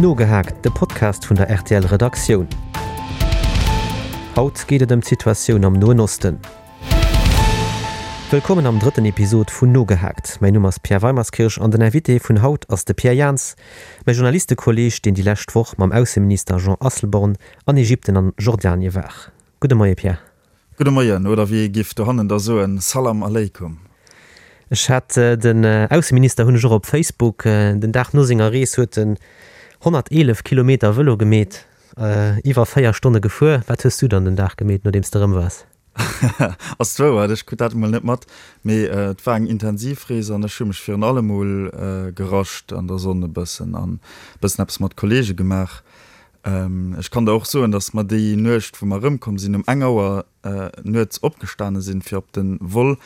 Nogehaakt, de Podcast vun der rtl Redaktioun. Haut geet et ëm d'Situatioun am Noen Osten. Wëllkommen am drëtten Episod vun Nogehaakt. Mäin Numm ass Pierre Weimerskirch an den Invité vun haut ass de Pierre Jans, mäi Journalistekolleeg, deen déi lescht Woch mam Ausseminister Jean Asselborn an Ägypten an Jordanie war. Gudde Moie Pierre. Gudde Moien, oder wéi ee giff dohannen da soen, Salam Aleikum. Ech hat den Ausseminister hunn ech och op Facebook. Den Dag no senger Rees huet en 111 Kilometer Vëlo gemeet, iwwer 4 Stonne gefuer. Wat hues du dann den Dag gemeet, nodeems de erëm waars? Ass d'Wouert, ech krut dat emol net mat, mee et war eng intensiv Rees an ech hu mech virun allem mol gerascht an der Sonn e bëssen an e bëssen eppes mat Kollege gemaach. Ech kann der och soen, datt mer déi Nuecht, wou mer erëmkomm sinn, um eng Auer nuets opgestane sinn, fir op de Vol,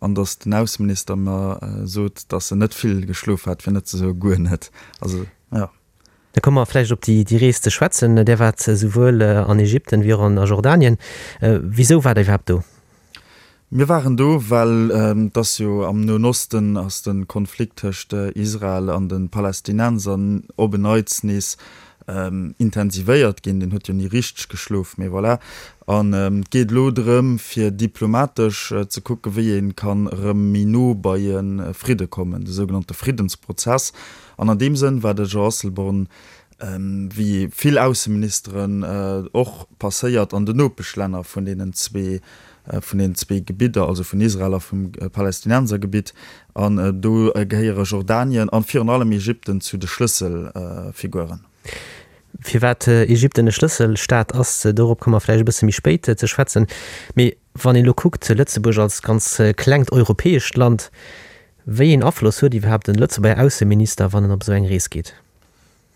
an datt den Ausseminister mer sot, datt en net vill geschlof hat, fir net ze soe guer net. Also, jo. Da komme mer vläicht op déi Rees ze schwätzen. Där waart souwuel an Ägypten wéi och an Jordanien. Wisou waart Der iwwerhaapt do? Mir waren do, well et ass jo am Noen Osten ass de Konflikt tëscht Israel an de Palästinenser op en Neits nees intensivéiert ginn. Deen huet jo ni richteg geschlof, mee voilà. An et geet elo drëm, fir diplomatesch ze kucken, wéi ee kann erëm méi no bei e Fridde kommen, de sougenannte Friddensprozess. An an deem Sënn war de Jean Asselborn wéi vill Ausseministeren och passéiert an den Nopeschlänner vun deenen zwee, vun deenen zwee Gebidder, also vun Israel a vum Palästinensergebitt. An do gehéiere Jordanien an virun allem Ägypten zu de Schlësselfiguren. Firwat Ägypten e Schlësselstaat ass, dorop komme mer vläicht e bësse méi spéit ze schwätzen. Mee wann een elo kuckt, Lëtzebuerg als ganz klengt europäescht Land, wéi een Afloss huet iwwerhaapt en Lëtzebuerger Ausseminister, wann en op esou eng Rees geet?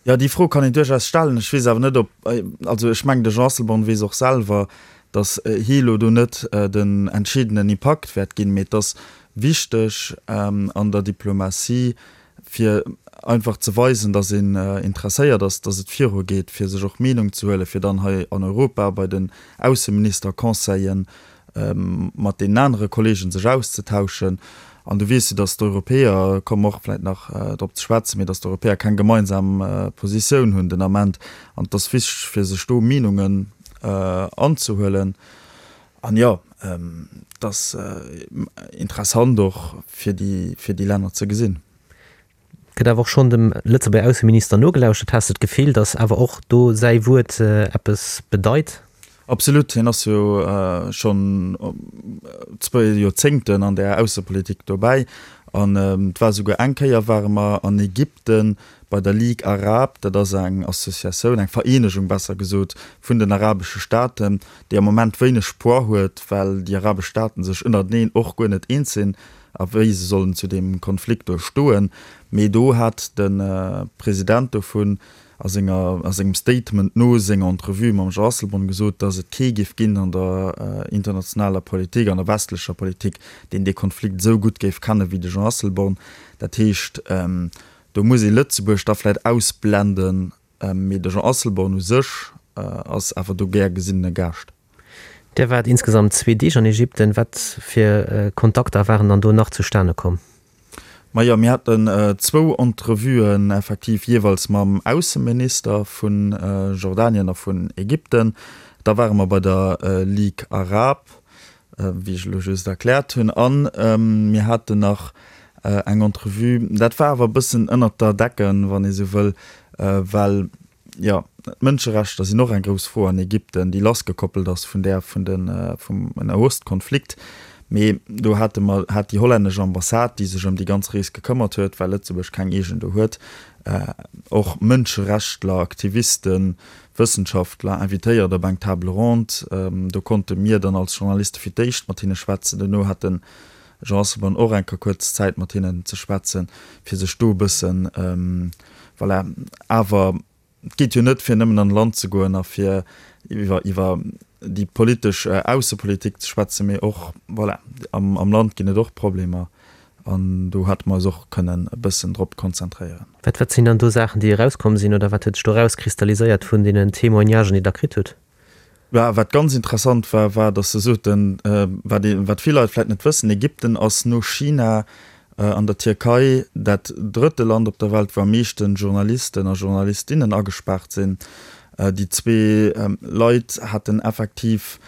Jo, déi Fro kann een duerchaus stellen. Ech weess awer net, ob, also ech mengen, de Jean Asselborn weess och selwer, datt hie elo do net den entscheedenden Impakt wäert ginn, mee et ass wichteg an der Diplomatie, fir einfach ze weisen, datt een interesséiert ass, datt et virugeet, fir sech och Meenung ze huelen, fir dann hei an Europa bei den Ausseministerconseillen mat deenen anere Kollegen sech auszetauschen. An du weess jo, datt d'Europäer, komme mer och vläicht nach drop ze schwätzen, mee datt d'Europäer keng gemeinsam Positioun hunn den Ament. An et ass wichteg, fir sech do Meenungen anzehuelen. An jo, et ass interessant och fir déi, fir déi Länner ze gesinn. Gëtt awer och schonn dem Lëtzebuerger Ausseminister nogelauschtert. Has de d'Gefill, datt awer och do säi Wuert eppes bedeit? Absolut, hien ass jo schonn zwou Joerzéngten an där Aussepolitik dobäi. An et war esouguer eng Kéier ware mer an Ägypten bei der Ligue Arabe, dat ass eng Associatioun, eng Vereenegung besser gesot, vun den arabesche Staaten, déi am Moment wéineg Poids huet, well déi arabesch Staaten sech ënnerteneen och guer net eens sinn. a wéi se sollen zu deem Konflikt do stoen. Mee do hat de President dovun a senger, a sengem Statement no senger Entrevue mam Jean Asselborn gesot, datt et kee géif ginn an der internationaler Politik, an der westlecher Politik, deen dee Konflikt esou gutt géif kenne wéi de Jean Asselborn. Dat heescht, do muss ee Lëtzebuerg da vläicht ausblenden, mee de Jean Asselborn u sech ass awer do gär gesinnene Gaascht. Dir waart insgesamt zwee Deeg an Ägypten. Wat fir Kontakter waren dann do nach zustane komm? Majo, mir haten zwou Entrevuen effektiv jeeweils mam Ausseminister vu Jordanien a vun Ägypten. Da ware mer bei der Ligue Arabe, wéi ech elo just erkläert hunn. A mir haten nach eng Entrevue, dat war awer e bëssen ënnert der Decken, wann ee sou wëll, well Jo, d'Mënscherechter sinn och eng grouss Fro an Ägypten, déi lassgekoppelt ass vun där vun de vum Nahostkonflikt. Mee do hate mer, hat déi hollännesch Ambassade, déi sech ëm déi ganz Rees gekëmmert huet, well Lëtzebuerg keng eegen do huet, och Mënscherechtler, Aktivisten, Wëssenschaftler invitéiert op eng Table ronde. Do konnte mir dann als Journaliste fir d'éischt mat hinne schwätzen. Duerno hat de Jean Asselborn och eng Kéier kuerz Zäit mat hinnen ze schwätzen, fir sech do e bëssen, Voilà, awer et geet jo net fir nëmmen an e Land ze goen a fir iwwer iwwer déi politesch Aussepolitik ze schwätzen, mee och, voilà, am am Land ginn et och Problemer an do hätte mer eis och kënnen e bëssen drop konzentréieren. Wat wat sinn dann do Saachen, déi erauskomm sinn oder wat huet sech do erauskristalliséiert vun deenen Témoignagen, déi Der kritt hutt? Bah, wat ganz interessant war, war, datt se soten, wat ee, wat vill Leit vläicht net wëssen, Ägypten ass no China. An der Tierkei, dat drëtte Land op der Welt, wou am meeschte Journalisten a Journalistinnen agespaart sinn. Déi zwee Leit haten effektiv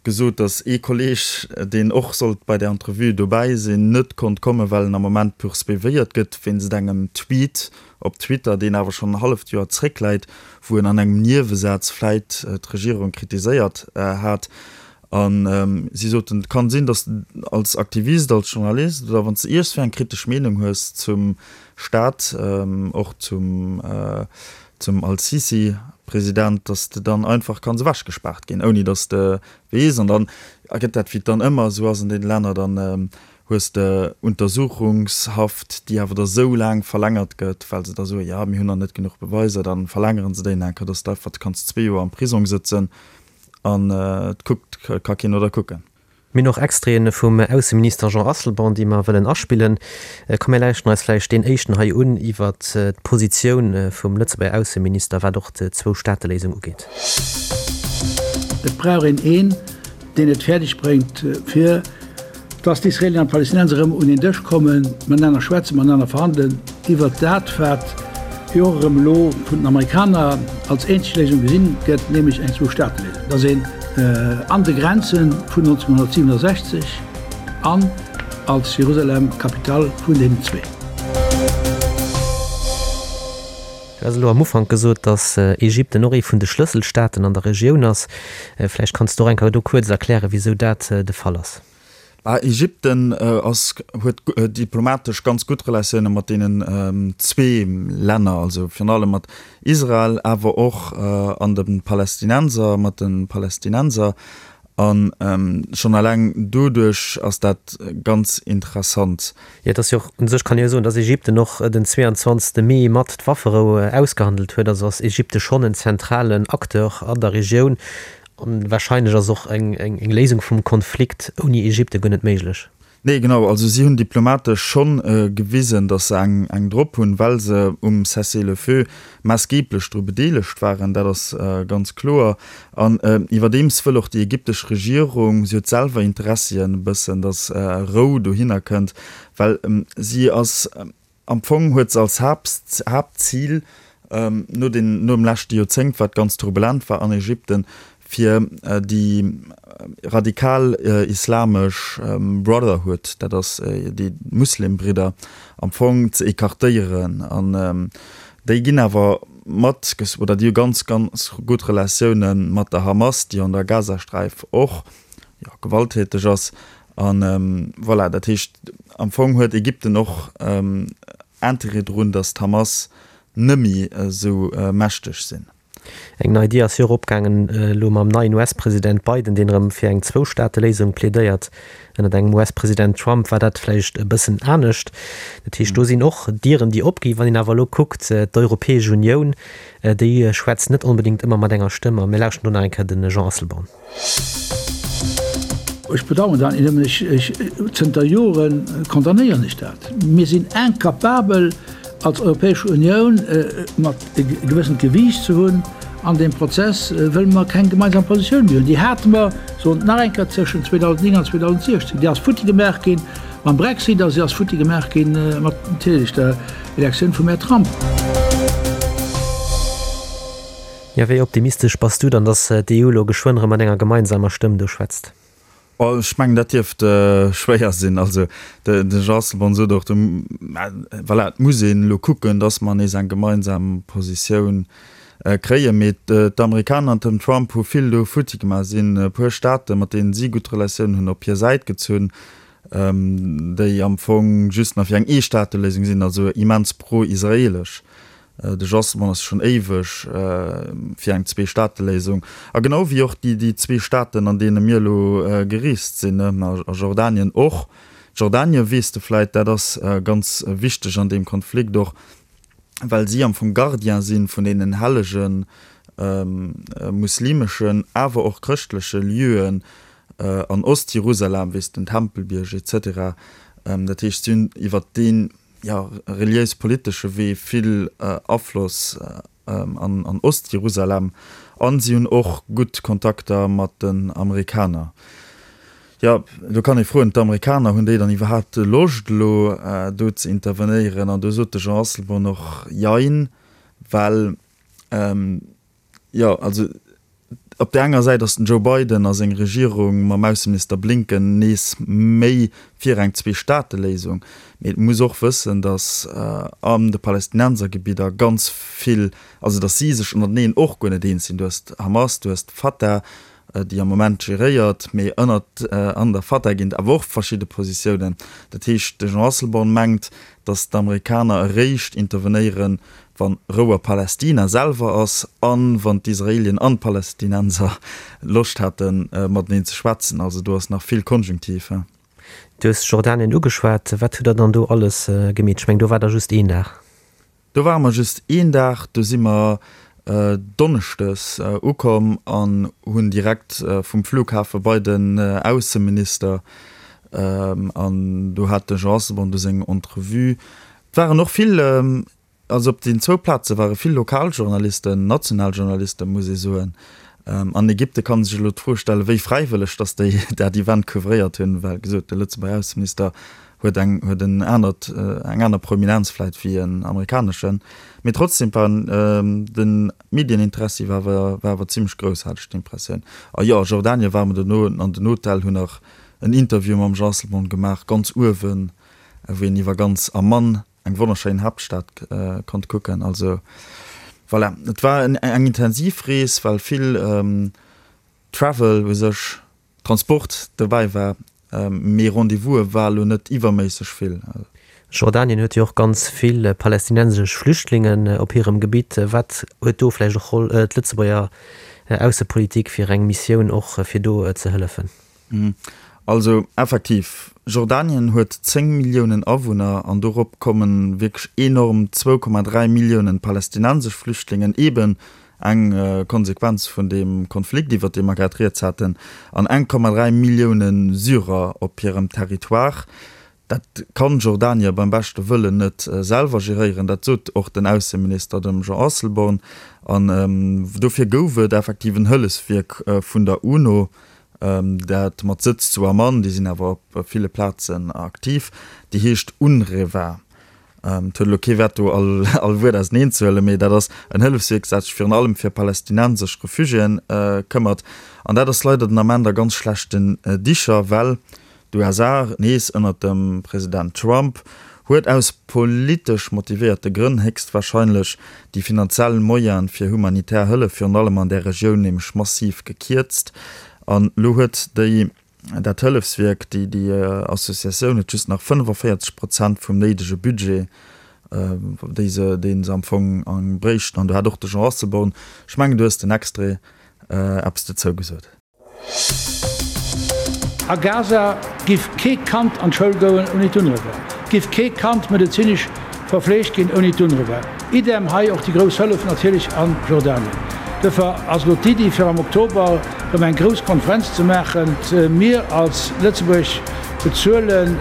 gesot, datt ee Kolleeg, deen och sollt bei där Entrevue dobäi sinn, net konnt kommen, well en am Moment poursuivéiert gëtt wéinst engem Tweet op Twitter, deen awer schonn en halleft Joer zréckläit, wou en an engem Niewesaz vläit d'Regierung kritiséiert hat. A si soten, et kann sinn, datt s de als Aktivist, als Journalist oder wann s de iergstwéi eng kritesch Meenung hues zum Staat, och zum zum Al-Sisi, President, datt s de dann einfach kanns ewechgespaart ginn, ouni datt s de weess. An dann ergëtt dat, wéi et dann ëmmer esou ass an deene Länner, dann hues de Untersuchungshaft, déi awer da sou laang verlängert gëtt, well se da soen, jo, mir hunn nach net genuch Beweiser, da verlängere se déi nach eng Kéier, datt s de einfach kanns zwee Joer am Prisong sëtzen an et kuckt, ka keen no der kucken. Mir hunn och Extraiten vum Ausseminister Jean Asselborn, déi mer wëllen aspillen. Komm mir lauschten eis vläicht deen éischten hei un iwwert d'Positioun vum Lëtzebuerger Ausseminister, wat och d'Zwou-Staate-Léisung ugeet. Et brauch een een, deen et fäerdeg bréngt, fir dass d'Israeelien an d'Palästinenser erëm un een Dësch kommen, matenaner schwätzen, matenaner verhandelen iwwert dat, wat jo och erëm elo vun den Amerikaner als eenzeg Léisung gesinn gëtt, nämlech eng Zwou-Staate-Léisung, dass een an de Grenze vun 1967 an als Jerusalem Capitale vun deenen zwee. Du has elo am Ufank gesot, datt Ägypten och ee vun de Schlësselstaaten an der Regioun ass. Vläicht kanns de och eng Kéier do kuerz erklären, wisou dat de Fall ass. Bah, Ägypten ass, huet diplomatesch ganz gutt Relatioune mat deenen zwee Länner, also virun allem mat Israel, awer och an de Palästinenser, mat de Palästinenser. A schonn eleng doduerch ass dat ganz interessant. Jo, et ass jo och, u sech kann ee jo soen, datt Ägypten och den 22. Mee mat d'Wafferou ausgehandelt huet. Also ass Ägypte schonn en zentralen Acteur an der Regioun. An wahrscheinlech ass och eng Léisung vum Konflikt ouni Ägypte guer net méiglech. Nee, genau. Also si hunn diplomatesch schonn gewisen, datt se eng drop hunn, well se um Cessez-le-feu maassgeeblech dru bedeelegt waren. Dat ass ganz kloer. An iwwerdeems wëll och déi ägyptesch Regierung, si huet selwer Interessien e bëssen, datt Rou dohinner kënnt, well si ass, Am Fong huet se als Haaptzil, no den, nom leschte Joerzéngt, wat ganz turbulent war an Ägypten, fir déi radikal islamesch Brotherhood, dat ass déi Muslimbridder, am Fong ze écartéieren. An déi ginn awer mat, oder déi hu ganz, ganz gutt Relatioune mat der Hamas, déi an der Gazasträif och, jo, gewalttäteg ass. A voilà, dat heescht, am Fong huet Ägypten och Interêt drun, datt d'Hamas nëmmi esou mächteg sinn. Eng nei Dier ass jo och opgaangen elo mam neien US-President Biden, deen erëm fir eng Zwou-Staate-Léisung plädéiert. Ënnert engem US-President Trump war dat vläicht e bëssen anescht. Dat heescht, do sinn och Dieren, déi opginn. Wann een awer elo kuckt, d'Europäesch Unioun, déi schwätzt net onbedéngt ëmmer mat enger Stëmm. A mir lauschten do nach eng Kéier de Jean Asselborn. Ech bedauern dat net nëmmen, ech, zënter Jore condamnéieren ech dat. Mir sinn incapabel als Europäesch Unioun mat e gewëssent Gewiicht ze hunn an deem Prozess, wëll mer keng gemeinsam Positioun méi hunn. Déi hate mer, soen et nach eng Kéier, tëschent 2009 an 2016. Déi ass futti gemaach gi mam Brexit a se ass futti gemaach gi mat natierlech der Elektioun vum Här Trump. Jo, wéi optimistesch bass du dann, datt d'EU elo geschwënn erëm mat enger gemeinsamer Stëmm do schwätzt? Oh, ech mengen, dat dierft schwéier sinn. Also de Jean Asselborn sot och, voilà, et muss een elo kucken, datt mer nees eng gemeinsam Positioun kréien. Mee d'Amerikaner an den Trump hu vill do futti gemaach, sinn e puer Staaten, mat deenen si gutt Relatiounen hunn, op hir Säit gezunn, déi am Fong just nach fir eng Eestaateléisung sinn, also immens pro-israeelesch. De Jasmon ass schonn éiweg fir eng Zweestaateléisung. A genau wéi och déi déi zwee Staaten, an deene mir elo gereest sinn, a Jordanien och. Jordanien, weess de vläit, dat ass ganz wichteg an deem Konflikt och, well si am Fong Gardien si vun deenen hellege muslimeschen, awer och chrëschtleche Lieuen an Ost-Jerusalem, weess den Tempelbierg et cetera. Dat heescht, si hunn iwwert deen jo, reliéis-politesche Wee vill Afloss an Ost-Jerusalem an si hunn och gutt Kontakter mat den Amerikaner. Jo, do kann ee froen, d'Amerikaner, hunn déi dann iwwerhaapt Loscht elo do ze intervenéieren? An do sot de Jean Asselborn och Jein, well jo, also op där enger Säit ass den Joe Biden a seng Regierung mam Ausseminister Blinken nees méi fir eng Zwee-Staate-Léisung, mee et muss och wëssen, datt an de Palästinensergebidder ganz vill, also datt si sech ënnerteneen och guer net eens sinn. Du hues d'Hamas, du hues d'Fatah, déi am Moment geréiert, mee ënnert an der Fatah ginn et awer och verschidde Positiounen. Dat heescht, de Jean Asselborn mengt, datt d'Amerikaner eréischt intervenéieren, wa Rou a Palästina selwer ass a wann d'Israelien an d'Palästinenser Loscht hätten, mateneen ze schwätzen. Also do ass nach vill Konjunktiv. Du hues Jordanien ugeschwat. Wat hutt Der dann do alles gemeet? Ech mengen, do waart Der just een Dag. Do ware mer just een Dag, do si mer donneschdes ukomm an hunn direkt vum Flughafe bei den Ausseminister an do hat de Jean Asselborn du seng Entrevue. Et waren och vill, also op den zwou Plaze ware vill Lokaljournalisten, national Journalisten, muss ee soen. An Ägypte kann ee sech elo d'Fro stellen, wéi fräiwëlleg datt déi dat Event couvréiert hunn, well gesot, de Lëtzebuerger Ausseminister huet eng huet en anert eng aner Prominenz vläit wéi en amerikaneschen, mee trotzdem war de Medieninteressi war awer war awer zimmlech grouss, hat ech d'Impressioun. A jo, a Jordanien ware mer dono an den Hotel, hunn nach en Interview mam Jean Asselborn gemaach, ganz uewen, wou een iwwer ganz Amman, eng wonnerschéin Haaptstad, konnt kucken. Also voilà, et war eng intensiv Rees, well vill Travel u sech Transport dobäi war, mee Rendez-vouse war elo net iwwerméisseg vill. Jordanien huet jo och ganz vill palästinensesch Flüchtlingen op hirem Gebitt. Wat huet do vläicht och Roll d'Lëtzebuerger Aussepolitik fir eng Missioun och fir do ze hëllefen? Also effektiv, Jordanien huet 10 Milliounen Awunner an dorop kommen wierklech enorm 2,3 Milliounen palästinensesch Flüchtlingen, eben Eng Konsequenz vun deem Konflikt, iwwer dee mer grad rieds haten, an 1,3 Millioune Syrer op hirem Territoire. Dat kann Jordanie beim beschte Wëllen net selwer geréieren. Dat sot och den Ausseminister, dem Jean Asselborn. An dofir gouf et effektiv en Hëllefswierk vun der UNO, dat mat Sëtz zu Amman, déi sinn awer op ville Plazen aktiv, déi heescht UNRWA. Et huet elo kee Wäert do all all Wuert auseneen ze huelen, mee dat ass en Hëllefswierk, dat sech virun allem fir palästinensesch Refugiéen këmmert. An dat ass leider den Ament a ganz schlechten Dicher, well d'USA, nees ënnert dem President Trump, huet aus politesch motivéierte Grënn héchstwahrscheinlech déi finanziell Moyene fir humanitär Hëllef, virun allem an där Regioun, nämlech massiv gekierzt. An elo huet déi Dat Hëllefswierk, déi déi Associatioun huet just nach 45 Prozent vum néidege Budget, déi se, dee se am Fong bréichten. An do hat och de Jean Asselborn, ech mengen du hues den Extrait, eppes dozou gesot. A Gaza giff kee Kand an d'Schoul goen ouni d'UNRWA, giff kee Kand medezinesch verfleegt ginn ouni d'UNRWA. Idem hei och déi grouss Hëllef natierlech a Jordanien. Duerfir ass elo d'Iddi fir am Oktober erëm eng grouss Konferenz ze maachen. Mir als Lëtzebuerg bezuelen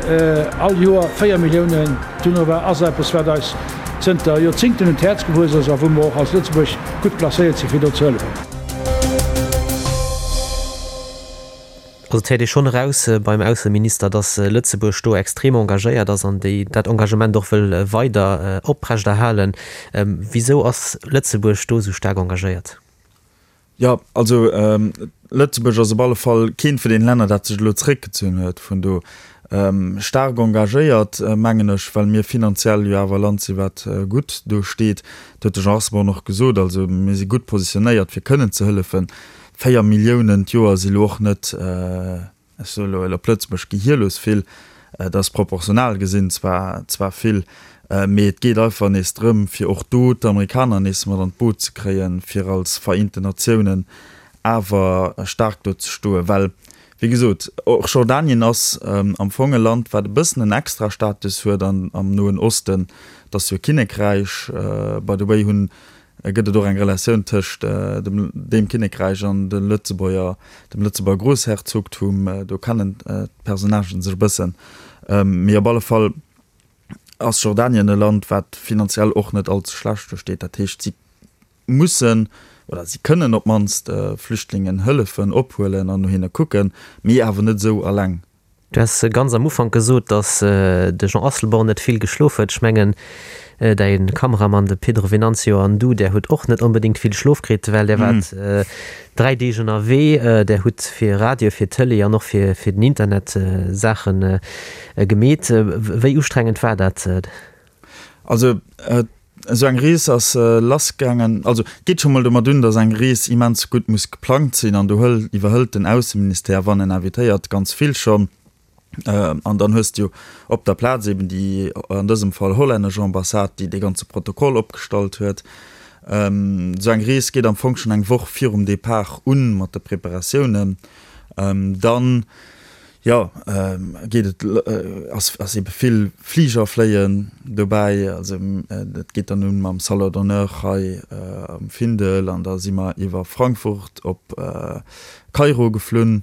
all Joer 4 Milliounen. D'UNRWA ass eppes wat eis zënter Joerzingten un d'Häerz gewuess ass a wou mer och als Lëtzebuerg gutt placéiert sinn fir do ze hëllefen. Also et héiert ee schonn eraus beim Ausseminister, datt Lëtzebuerg do extrem engagéiert ass an déi dat Engagement och wëll weider oprechterhalen. Wisou ass Lëtzebuerg do esou staark engagéiert? Jo, also Lëtzebuerg ass op alle Fall keent vun deene Länner, dat sech elo zeréckgezunn huet vun do. Staark engagéiert, mengen ech, well mir finanziell jo awer e Land sinn, wat gutt do steet. Dat huet de Jean Asselborn och gesot. Also mir si gutt positionéiert, fir kënnen ze hëllefen. 4 Milliounen d'Joer si lo och net, ech soe lo op Lëtzebuerg, gehierlos vill. Dat ass proportional gesinn zwar zwar vill, mee et geet einfach nees drëm, fir och do d'Amerikaner nees mat an d'Boot ze kréien, fir als Vereenten Natiounen awer staark do ze stoen. Well, wéi gesot, och Jordanien ass am Fong e Land, wat e bëssen en Extrastatus huet am Noen Osten. Et ass jo e Kinnekräich, by the way hunn gëtt et och eng Relatioun tëscht dem deem Kinnekräich an de Lëtzebuerger, dem Lëtzebuerger Groussherzogtum. Do kennen d'Personnagen sech e bëssen. Mee op alle Fall ass Jordanien e Land, wat finanziell och net all ze schlecht do steet. Dat heescht, si mussen. oder si kënnen op d'mannst Flüchtlingen hëllefen, ophuelen an no hinne kucken, mee awer net esou alleng. Du has ganz am Ufank gesot, datt de Jean Asselborn net vill geschlof huet. Ech mengen, däi Kameramann, de Pedro Venancio, an du, där hutt och net onbedéngt vill Schlof kritt, well där waart 3 Deeg ënnerwee. Där hutt fir Radio, fir Tëlee an och fir den Internet Saache gemeet. Wéi ustrengend war dat? Also esou eng Rees ass lassgaangen, also et geet scho mol domat un, datt eng Rees immens gutt muss geplangt sinn an do hël iwwerhëlt den Ausseministère, wann en invitéiert, ganz vill schonn. An dann hues de jo op der Plaz eben déi, an dësem Fall hollännesch Ambassade, déi dee ganze Protokoll opgestallt huet. Esou eng Rees geet am Fong schonn eng Woch virum Depart un mat de Preparatiounen. Dann Jo, geet et, ass ass ebe vill Fliger fléien dobäi. Also dat geet dann un mam Salon d'honneur hei am Findel an da si mer iwwer Frankfurt op Kairo geflunn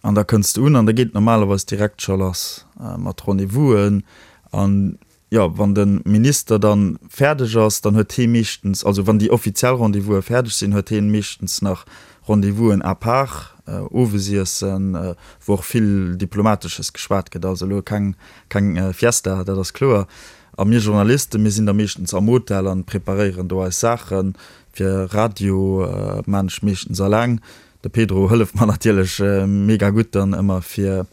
an da kënns de un an da geet et normalerweis direkt scho lass mat Rendez-vousen an Jo, wann de Minister dann fäerdeg ass, dann huet hee meeschtens, also wann déi offiziell Rendez-vouse fäerdeg sinn, huet heen meeschtens nach Rendez-vousen à part, Owesiessen, wou och vill Diplomatesches geschwat gëtt. Also elo keng, keng Fiesta, dat ass kloer. A mir Journalisten, mir sinn da meeschtens am Hotel an preparéieren do eis Saachen. Fir Radio maan ech meeschtens alleng. De Pedro hëlleft mer natierlech mega gutt dann ëmmer fir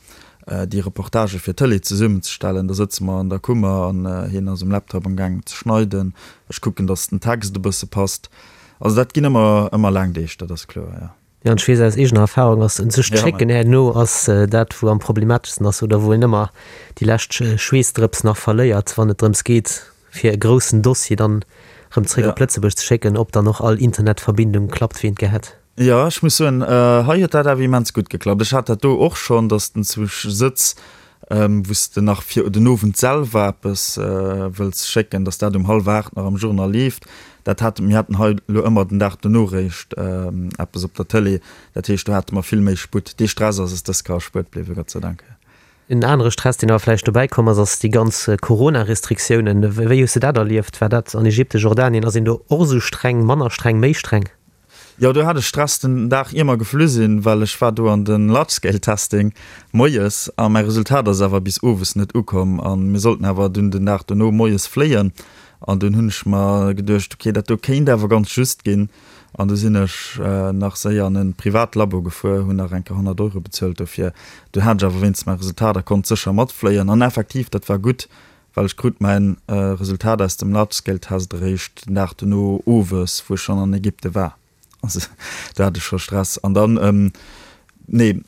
déi Reportagë fir d'Tëlee zesummenzestellen. Da sëtze mer an der Kummer an hien ass um Laptop am gaangen ze schneiden. Ech kucken, datt den Text e bësse passt. Also dat ginn ëmmer ëmmer laang Deeg, dat ass kloer, jo. Jo, an ech weess aus eegener Erfahrung, ass sech d'Schécken herno ass dat wou am problemateschsten ass oder wou een ëmmer déi lescht Schweessdrëps nach verléiert, wann et drëms geet fir e groussen Dossier dann erëm zréck op Lëtzebuerg ze schécken, ob dann och all Internetverbindung klappt wéi een et gär hätt. Jo, ech muss soen, hei huet dat awer immens gutt geklappt. Ech hat dat do och schonn, dass den zu sëtz, wou s de nach fir den Owend selwer eppes wëlls schécken, dass dat um hallwer 8 nach am Journal leeft. Dat hate mir haten hei elo ëmmer den Dag dono réischt eppes op der Tëlee. Dat heescht, do hate mer vill méi Sputt. Dee Stress ass es dës Kéier erspuert bliwwen, Gott sei Dank. En anere Stress, deen awer vläicht dobäi komm ass, ass déi ganz Corona-Restriktiounen. Wéi hues de dat erlieft? War dat an Ägypten, Jordanien, ass een do och esou streng, manner streng, méi streng? Jo, do hat ech Stress den Dag ier mer geflu sinn, well ech war do an den Large Scale Testing moies a mäi Resultat ass awer bis owes net ukomm a mir sollten awer dunn den Dag dono moies fléien an dunn hunn ech mer geduecht, ok dat do kéint awer ganz just ginn an du sinn ech nach séier an e privat Labo gefuer, hunn nach eng Kéier 100 Euro bezuelt dofir. Dunn hat ech awer wéinstens mäi Resultat a konnt sécher matfléien an effektiv dat war gutt, Well ech krut mäin Resultat aus dem Large Scale Test eréischt den Dag dono owes, wou ech schonn an Ägypte war. Also do hat ech scho Stress. An dann, nee,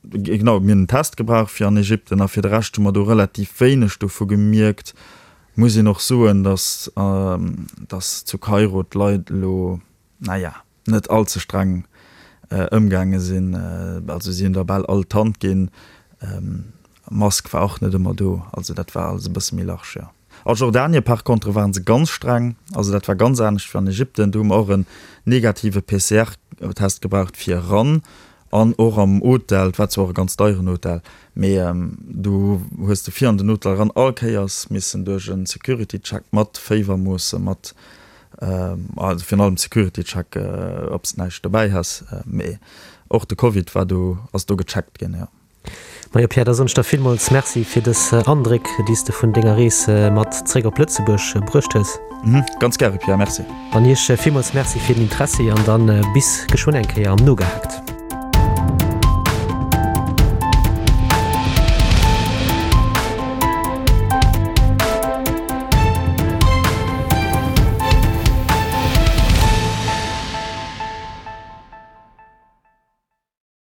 genau, mir hunn en Test gebraucht fir an Ägypten a fir de Rescht hu mer do relativ wéineg dovu gemierkt. Muss een och soen, datt, datt zu Kairo d'Leit elo, naja, net all ze streng ëmgaange sinn. Also si hunn der bal all d'Hand ginn. Mask war och net ëmmer do. Also dat war alles e bësse méi large, jo. A Jordanien par contre waren se ganz streng. Also dat war ganz anescht wéi an Ägypten. Do hu mer och en negative PCR-Test gebraucht fir eran an och am Hotel. Et war zwar och e ganz deieren Hotel, mee du hues de fir an den Hotel eran all Kéiers missen duerch e Security-Check mat Féiwermoosse, mat Also virun allem Security Check, ob s de näischt dobäi has, mee och de Covid war do, ass do gecheckt ginn, jo. Majo Pierre, da soen ech der villmools Merci fir dës Andréck, déi s de vun denger Rees mat zréck op Lëtzebuerg bruecht hues. Ganz gäre Pierre, Merci. An iech villmools Merci fir den Interessi an dann bis geschwënn eng Kéier am Nogehaakt.